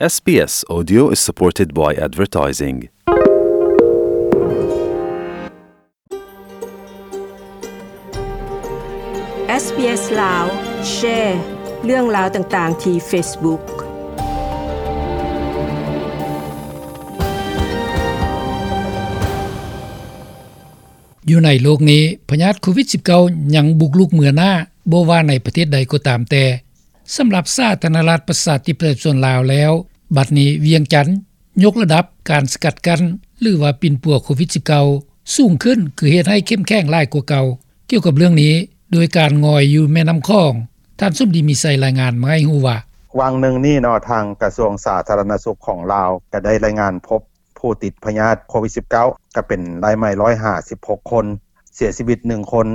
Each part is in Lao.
SBS Audio is supported by advertising. ເອສບີເອສ ລາວ ແຊເລື່ອງລາວຕ່າງໆ ທີ່ Facebook. ຢູ່ໃນໂລກນີ້ ພະຍາດໂຄວິດ-19 ຍັງບຸກລຸກເມືອໜ້າ ບໍ່ວ່າໃນປະເທດໃດກໍຕາມແຕ່. ສຳລັບສາທາລະນະລັດ ປະຊາທິປະໄຕ ປະຊາຊົນລາວແລ້ວ, ບັດນີ້ວຽງຈັນຍົກລະດັບການສະກັດກັ້ນ ຫຼືວ່າປິ່ນປົວໂຄວິດ-19 ສູງຂຶ້ນ ຄືເຮັດໃຫ້ເຂັ້ມແຂງຫຼາຍກວ່າເກົ່າ. ກ່ຽວກັບເລື່ອງນີ້, ໂດຍການງອຍຢູ່ແມ່ນ້ຳຂອງ, ທ່ານ ສົມດີ ມີໄຊ ລາຍງານມາໃຫ້ຮູ້ວ່າ: ຫວ່າງໜຶ່ງນີ້ເນາະ, ທາງກະຊວງສາທາລະນະສຸກຂອງລາວ ກໍໄດ້ລາຍງານພົບຜູ້ຕິດພະຍາດໂຄວິດ-19 ກໍເປັນລາຍໃໝ່ ໜຶ່ງຮ້ອຍຫ້າສິບຫົກຄົນ, ເສຍຊີວິດໜຶ່ງຄົນ.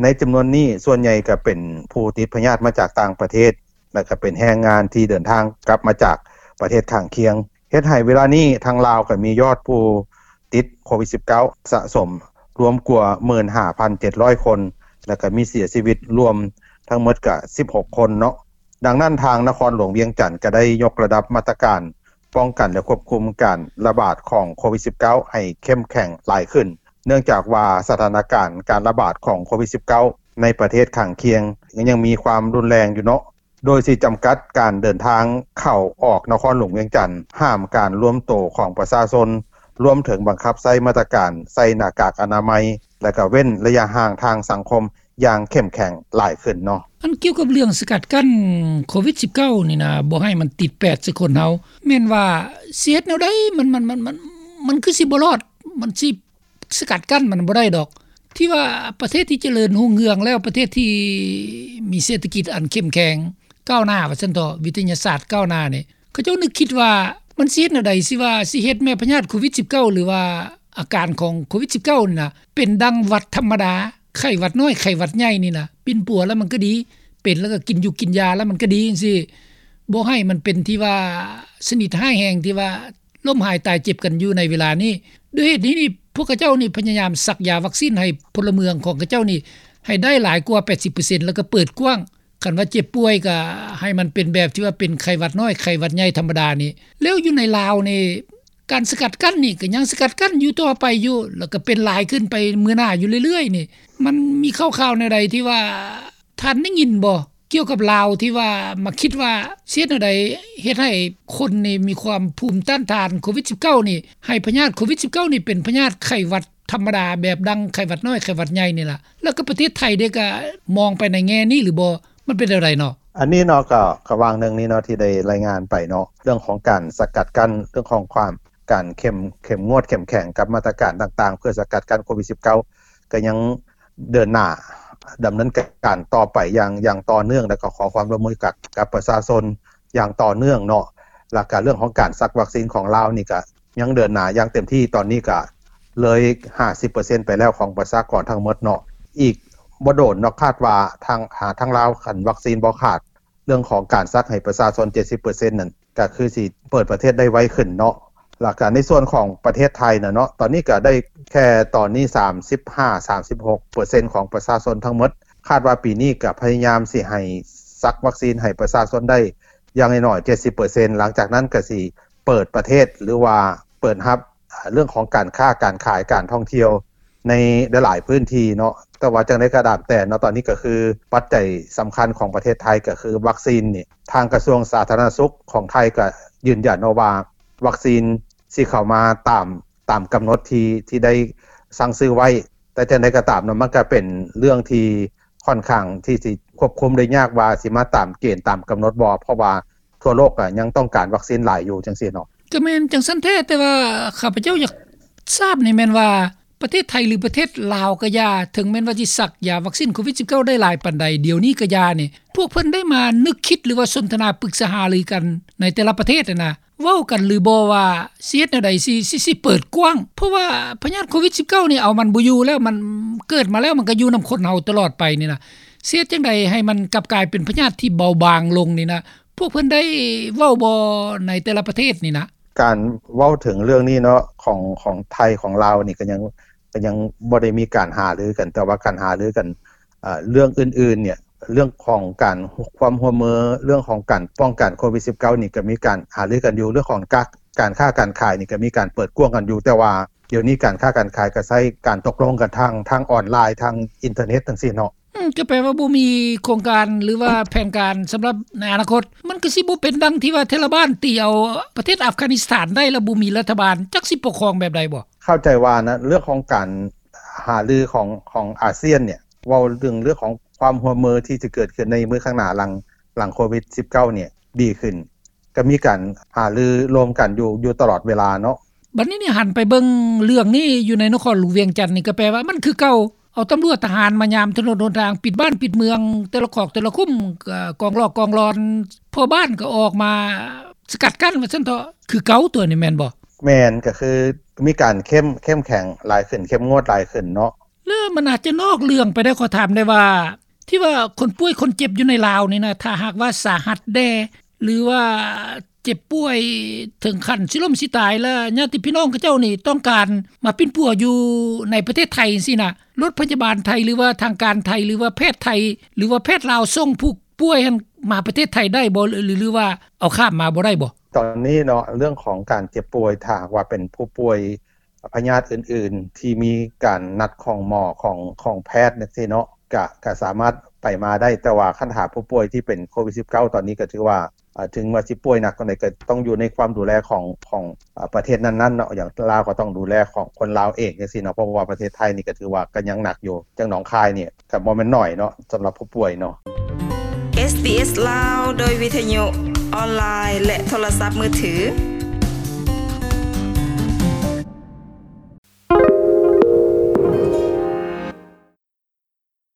ໃນຈຳນວນນີ້ ສ່ວນໃຫຍ່ກໍເປັນຜູ້ຕິດພະຍາດມາຈາກຕ່າງປະເທດ ແລະ ກໍເປັນແຮງງານທີ່ເດີນທາງກັບມາຈາກປະເທດຂ້າງຄຽງ, ເຮັດໃຫ້ເວລານີ້ທາງລາວກໍມີຍອດຜູ້ຕິດໂຄວິດ-19 ສະສົມລວມກວ່າ ໝື່ນຫ້າພັນເຈັດຮ້ອຍຄົນ ແລະ ກໍມີເສຍຊີວິດລວມທັງໝົດກໍສິບຫົກຄົນເນາະ. ດັ່ງນັ້ນ ທາງນະຄອນຫຼວງວຽງຈັນກໍໄດ້ຍົກລະດັບມາດຕະການປ້ອງກັນ ແລະ ຄວບຄຸມການລະບາດຂອງໂຄວິດ-19 ໃຫ້ເຂັ້ມແຂງຫຼາຍຂຶ້ນ, ເນື່ອງຈາກວ່າສະຖານະການການລະບາດຂອງໂຄວິດ-19 ໃນປະເທດຂ້າງຄຽງຍັງມີຄວາມຮຸນແຮງຢູ່ເນາະ, ໂດຍຊິຈຳກັດການເດີນທາງເຂົ້າອອກນະຄອນຫຼວງວຽງຈັນ, ຫ້າມການລວມໂຕຂອງປະຊາຊົນ, ລວມເຖິງບັງຄັບໃຊ້ມາດຕະການໃສ່ໜ້າກາກອະນາໄມ ແລະ ກະເວັ້ນໄລຍະຫ່າງທາງສັງຄົມ ຢ່າງເຂັ້ມແຂງຫຼາຍຂຶ້ນເນາະ. ອັນກ່ຽວກັບເລື່ອງສະກັດກັ້ນໂຄວິດ-19 ນີ້ນະ ບໍ່ໃຫ້ມັນຕິດແປດໃສ່ຄົນເຮົາ ແມ່ນວ່າຊິເຮັດແນວໃດ ມັນ ມັນ ມັນ ມັນ ມັນຄືຊິບໍ່ລອດ ມັນຊິສະກັດກັ້ນມັນບໍ່ໄດ້ດອກ. ທີ່ວ່າປະເທດທີ່ຈະເລີນຮຸ່ງເຮືອງແລ້ວ ປະເທດທີ່ມີເສດຖະກິດອັນເຂັ້ມແຂງກ້າວໜ້າວ່າຊັ້ນເຖາະ ວິທະຍາສາດກ້າວໜ້ານີ້ ເຂົາເຈົ້ານຶກຄິດວ່າມັນຊິເຮັດແນວໃດ ຊິວ່າຊິເຮັດແມ່ພະຍາດໂຄວິດ-19 ຫຼືວ່າອາການຂອງໂຄວິດ-19 ນີ້ນະ ເປັນດັ່ງຫວັດທຳມະດາ ໄຂ້ຫວັດນ້ອຍ ໄຂ້ຫວັດໃຫຍ່ນີ້ນະ ປິ່ນປົວແລ້ວມັນກໍດີ ເປັນແລ້ວກໍກິນຢູກິນຢາແລ້ວມັນກໍດີຈັ່ງຊີ້ ບໍ່ໃຫ້ມັນເປັນທີ່ວ່າຊະນິດຮ້າຍແຮງທີ່ວ່າລົ້ມຫາຍຕາຍເຈັບກັນຢູ່ໃນເວລານີ້. ດ້ວຍເຫດນີ້ນີ້ ພວກເຂົາເຈົ້ານີ້ພະຍາຍາມສັກຢາວັກຊີນໃຫ້ພົນລະເມືອງຂອງເຂົາເຈົ້ານີ້ໃຫ້ໄດ້ຫຼາຍກວ່າແປດສິບເປີເຊັນ ແລ້ວກໍເປີດກວ້າງ ຄັນວ່າເຈັບປ່ວຍກໍໃຫ້ມັນເປັນແບບທີ່ວ່າເປັນໄຂ້ຫວັດນ້ອຍ ໄຂ້ຫວັດໃຫຍ່ທຳມະດານີ້. ແລ້ວຢູ່ໃນລາວນີ້ ການສະກັດກັ້ນນີ້ກໍຍັງສະກັດກັ້ນຢູ່ຕໍ່ໄປຢູ່ ແລ້ວກໍເປັນຫຼາຍຂຶ້ນໄປມື້ໜ້າຢູ່ເລື້ອຍໆນີ້ ມັນມີຂ່າວໆແນວໃດທີ່ວ່າທ່ານໄດ້ຍິນບໍ່ ກ່ຽວກັບລາວທີ່ວ່າມາຄິດວ່າຊິເຮັດແນວໃດເຮັດໃຫ້ຄົນນີ້ມີຄວາມພູມຕ້ານທານໂຄວິດ-19 ນີ້ ໃຫ້ພະຍາດໂຄວິດ-19 ນີ້ເປັນພະຍາດໄຂ້ຫວັດທຳມະດາ ແບບດັ່ງໄຂ້ຫວັດນ້ອຍ ໄຂ້ຫວັດໃຫຍ່ນີ້ລະ ແລ້ວກໍປະເທດໄທເດ້ ກໍມອງໄປໃນແງ່ນີ້ຫຼືບໍ່ ມັນເປັນແນວໃດເນາະ? ອັນນີ້ເນາະ ກໍ ກໍຫວ່າງໜຶ່ງນີ້ເນາະ ທີ່ໄດ້ລາຍງານໄປເນາະ ເລື່ອງຂອງການສະກັດກັ້ນ ເລື່ອງຂອງຄວາມ ການເຂັ້ມ ເຂັ້ມງວດ ເຂັ້ມແຂງກັບມາດຕະການຕ່າງໆ ເພື່ອສະກັດກັ້ນໂຄວິດ-19 ກໍຍັງເດີນໜ້າດຳເນີນການຕໍ່ໄປຢ່າງ ຢ່າງຕໍ່ເນື່ອງ ແລ້ວກໍຂໍຄວາມຮ່ວມມືກັບ ກັບປະຊາຊົນຢ່າງຕໍ່ເນື່ອງເນາະ. ແລ້ວກໍເລື່ອງຂອງການສັກວັກຊີນຂອງລາວນີ້ກໍ ຍັງເດີນໜ້າຢ່າງເຕັມທີ່ ຕອນນີ້ກະເລີຍຫ້າສິບເປີເຊັນໄປແລ້ວຂອງປະຊາກອນທັງໝົດເນາະ. ອີກບໍ່ດົນເນາະ ຄາດວ່າທາງ ທາງລາວ ຄັນວັກຊີນບໍ່ຂາດ ເລື່ອງຂອງການສັກໃຫ້ປະຊາຊົນເຈັດສິບເປີເຊັນນັ້ນ ກະຄືຊິເປີດປະເທດໄດ້ໄວຂຶ້ນເນາະ. ແລ້ວກະໃນສ່ວນຂອງປະເທດໄທນະເນາະ ຕອນນີ້ກະໄດ້ແຄ່ຕອນນີ້ສາມສິບຫ້າ ສາມສິບຫົກເປີເຊັນຂອງປະຊາຊົນທັງໝົດ. ຄາດວ່າປີນີ້ກະພະຍາຍາມຊິໃຫ້ສັກວັກຊີນໃຫ້ປະຊາຊົນໄດ້ຢ່າງໜ້ອຍໆເຈັດສິບເປີເຊັນ ຫຼັງຈາກນັ້ນກະຊິ ເປີດປະເທດ ຫຼືວ່າເປີດຮັບເລື່ອງຂອງການຄ້າການຂາຍ ການທ່ອງທ່ຽວໃນຫຼາຍໆພື້ນທີ່ເນາະ. ແຕ່ວ່າຈັ່ງໃດກໍຕາມແຕ່ເນາະ ຕອນນີ້ກໍຄືປັດໄຈສຳຄັນຂອງປະເທດໄທກໍຄືວັກຊີນນີ້ ທາງກະຊວງສາທາລະນະສຸກຂອງໄທກໍຢືນຢັນເນາະວ່າ ວັກຊີນຊິເຂົ້າມາຕາມ ຕາມກຳນົດທີ່ ທີ່ໄດ້ສັ່ງຊື້ໄວ້. ແຕ່ຈັ່ງໃດກໍຕາມເນາະ ມັນກໍເປັນເລື່ອງທີ່ຂ້ອນຂ້າງທີ່ຊິຄວບຄຸມໄດ້ຍາກວ່າຊິມາຕາມເກນຕາມກຳນົດບໍ່ ເພາະວ່າ ທົ່ວໂລກກໍຍັງຕ້ອງການວັກຊີນຫຼາຍຢູ່ຈັ່ງຊີ້ເນາະ. ກໍແມ່ນຈັ່ງຊັ້ນແທ້ ແຕ່ວ່າຂ້າພະເຈົ້າຢາກຊາບນີ້ແມ່ນວ່າ ປະເທດໄທ ຫຼື ປະເທດລາວກໍຢ່າ ເຖິງແມ່ນວ່າຊິສັກຢາວັກຊີນໂຄວິດ-19 ໄດ້ຫຼາຍປານໃດ ດຽວນີ້ກໍຢ່ານີ້ ພວກເພິ່ນໄດ້ມານຶກຄິດ ຫຼືວ່າສົນທະນາປຶກສາຫາລືກັນໃນແຕ່ລະປະເທດຫັ້ນນະ ເວົ້າກັນຫຼືບໍ່ວ່າຊິເຮັດແນວໃດ ຊິ ຊິ ຊິເປີດກວ້າງ ເພາະວ່າພະຍາດໂຄວິດ-19 ນີ້ເອົາມັນບໍ່ຢູ່ແລ້ວ ມັນເກີດມາແລ້ວ ມັນກໍຢູ່ນຳຄົນເຮົາຕະຫຼອດໄປນີ້ນະ ຊິເຮັດຈັ່ງໃດໃຫ້ມັນກັບກາຍເປັນພະຍາດທີ່ເບົາບາງລົງນີ້ນະ ພວກເພິ່ນໄດ້ເວົ້າບໍ່ໃນແຕ່ລະປະເທດນີ້ນະ? ການເວົ້າເຖິງເລື່ອງນີ້ເນາະ ຂອງ ຂອງໄທ ຂອງລາວນີ້ ກໍຍັງ ກໍຍັງບໍ່ໄດ້ມີການຫາລືກັນ ແຕ່ວ່າການຫາລືກັນ ເອີ ເລື່ອງອື່ນໆເນຍ ເລື່ອງຂອງການ ຄວາມຮ່ວມມື ເລື່ອງຂອງການປ້ອງກັນໂຄວິດ-19 ນີ້ ກໍມີການຫາລືກັນຢູ່ ເລື່ອງຂອງການຄ້າການຂາຍນີ້ ກໍມີການເປີດກວ້າງກັນຢູ່ ແຕ່ວ່າດຽວນີ້ການຄ້າການຂາຍ ກໍໃຊ້ການຕົກລົງກັນທາງ ທາງອອນລາຍ ທາງອິນເຕີເນັດຈັ່ງຊີ້ເນາະ. ອືມ ກໍແປວ່າບໍ່ມີໂຄງການ ຫຼືວ່າແຜນການສຳລັບໃນອະນາຄົດ ມັນກໍຊິບໍ່ເປັນດັ່ງທີ່ວ່າ ໄທລະບານຕີເອົາປະເທດອັຟການິສຖານໄດ້ ແລ້ວບໍ່ມີລັດຖະບານ ຈັກຊິປົກຄອງແບບໃດບໍ່? ເຂົ້າໃຈວ່ານະ ເລື່ອງຂອງການຫາລືຂອງ ຂອງອາຊຽນນີ້ ເວົ້າເຖິງເລື່ອງຂອງຄວາມຮ່ວມມືທີ່ຈະເກີດຂຶ້ນໃນມື້ຂ້າງໜ້າ ຫຼັງ ຫຼັງໂຄວິດ-19 ນີ້ດີຂຶ້ນ ກໍມີການຫາລືລວມກັນຢູ່ ຢູ່ຕະຫຼອດເວລາເນາະ. ບັດນີ້ນີ້ ຫັນໄປເບິ່ງເລື່ອງນີ້ຢູ່ໃນນະຄອນຫຼວງວຽງຈັນນີ້ ກໍແປວ່າມັນຄືເກົ່າ ເອົາຕຳຫຼວດທະຫານມາຍາມຖະໜົນຫົນທາງ ປິດບ້ານປິດເມືອງ ແຕ່ລະຄອກແຕ່ລະຄຸ້ມ ກອງຫຼອກກອງຫຼອນ ພໍ່ບ້ານກໍອອກມາສະກັດກັ້ນວ່າຊັ້ນເຖາະ ຄືເກົ່າຕົວນີ້ແມ່ນບໍ່? ແມ່ນ ກໍຄືມີການເຂັ້ມ ເຂັ້ມແຂງຫຼາຍຂຶ້ນ ເຂັ້ມງວດຫຼາຍຂຶ້ນເນາະ. ແລ້ວມັນອາດຈະນອກເລື່ອງໄປໄດ້ ຂໍຖາມໄດ້ວ່າ ທີ່ວ່າຄົນປ່ວຍຄົນເຈັບຢູ່ໃນລາວນີ້ນະ ຖ້າຫາກວ່າສາຫັດແດ່ ຫຼືວ່າເຈັບປ່ວຍເຖິງຂັ້ນຊິລົ້ມຊິຕາຍ ແລ້ວຍາດຕິພີ່ນ້ອງເຂົາເຈົ້ານີ້ຕ້ອງການມາປິ່ນປົວຢູ່ໃນປະເທດໄທຈັ່ງຊີ້ນະ ລົດພະຍາບານໄທ ຫຼືວ່າທາງການໄທ ຫຼືວ່າແພດໄທ ຫຼືວ່າແພດລາວສົ່ງຜູ້ປ່ວຍຫັ້ນມາປະເທດໄທໄດ້ບໍ່ ຫຼື ຫຼືວ່າເອົາຂ້າມມາບໍ່ໄດ້ບໍ່? ຕອນນີ້ເນາະ ເລື່ອງຂອງການເຈັບປ່ວຍ ຖ້າຫາກວ່າເປັນຜູ້ປ່ວຍ ພະຍາດອື່ນໆ ທີ່ມີການນັດຂອງໝໍ ຂອງ ຂອງແພດຈັ່ງຊີ້ເນາະ ກະ ກະສາມາດໄປມາໄດ້ ແຕ່ວ່າຄັນຖ້າຜູ້ປ່ວຍທີ່ເປັນໂຄວິດ-19 ຕອນນີ້ກໍຖືວ່າ ເອີ ເຖິງວ່າຊິປ່ວຍໜັກປານໃດ ກໍຕ້ອງຢູ່ໃນຄວາມດູແລຂອງ ຂອງ ເອີ ປະເທດນັ້ນໆເນາະ ຢ່າງລາວກໍຕ້ອງດູແລຂອງຄົນລາວເອງຈັ່ງຊີ້ເນາະ ເພາະວ່າປະເທດໄທນີ້ກໍຖືວ່າກໍຍັງໜັກຢູ່ ຢ່າງໜອງຄາຍນີ້ກໍບໍ່ແມ່ນໜ້ອຍເນາະ ສຳລັບຜູ້ປ່ວຍເນາະ. ເອສບີເອສ ລາວ ໂດຍວິທະຍຸ ອອນລາຍ ແລະ ໂທລະສັບມືຖື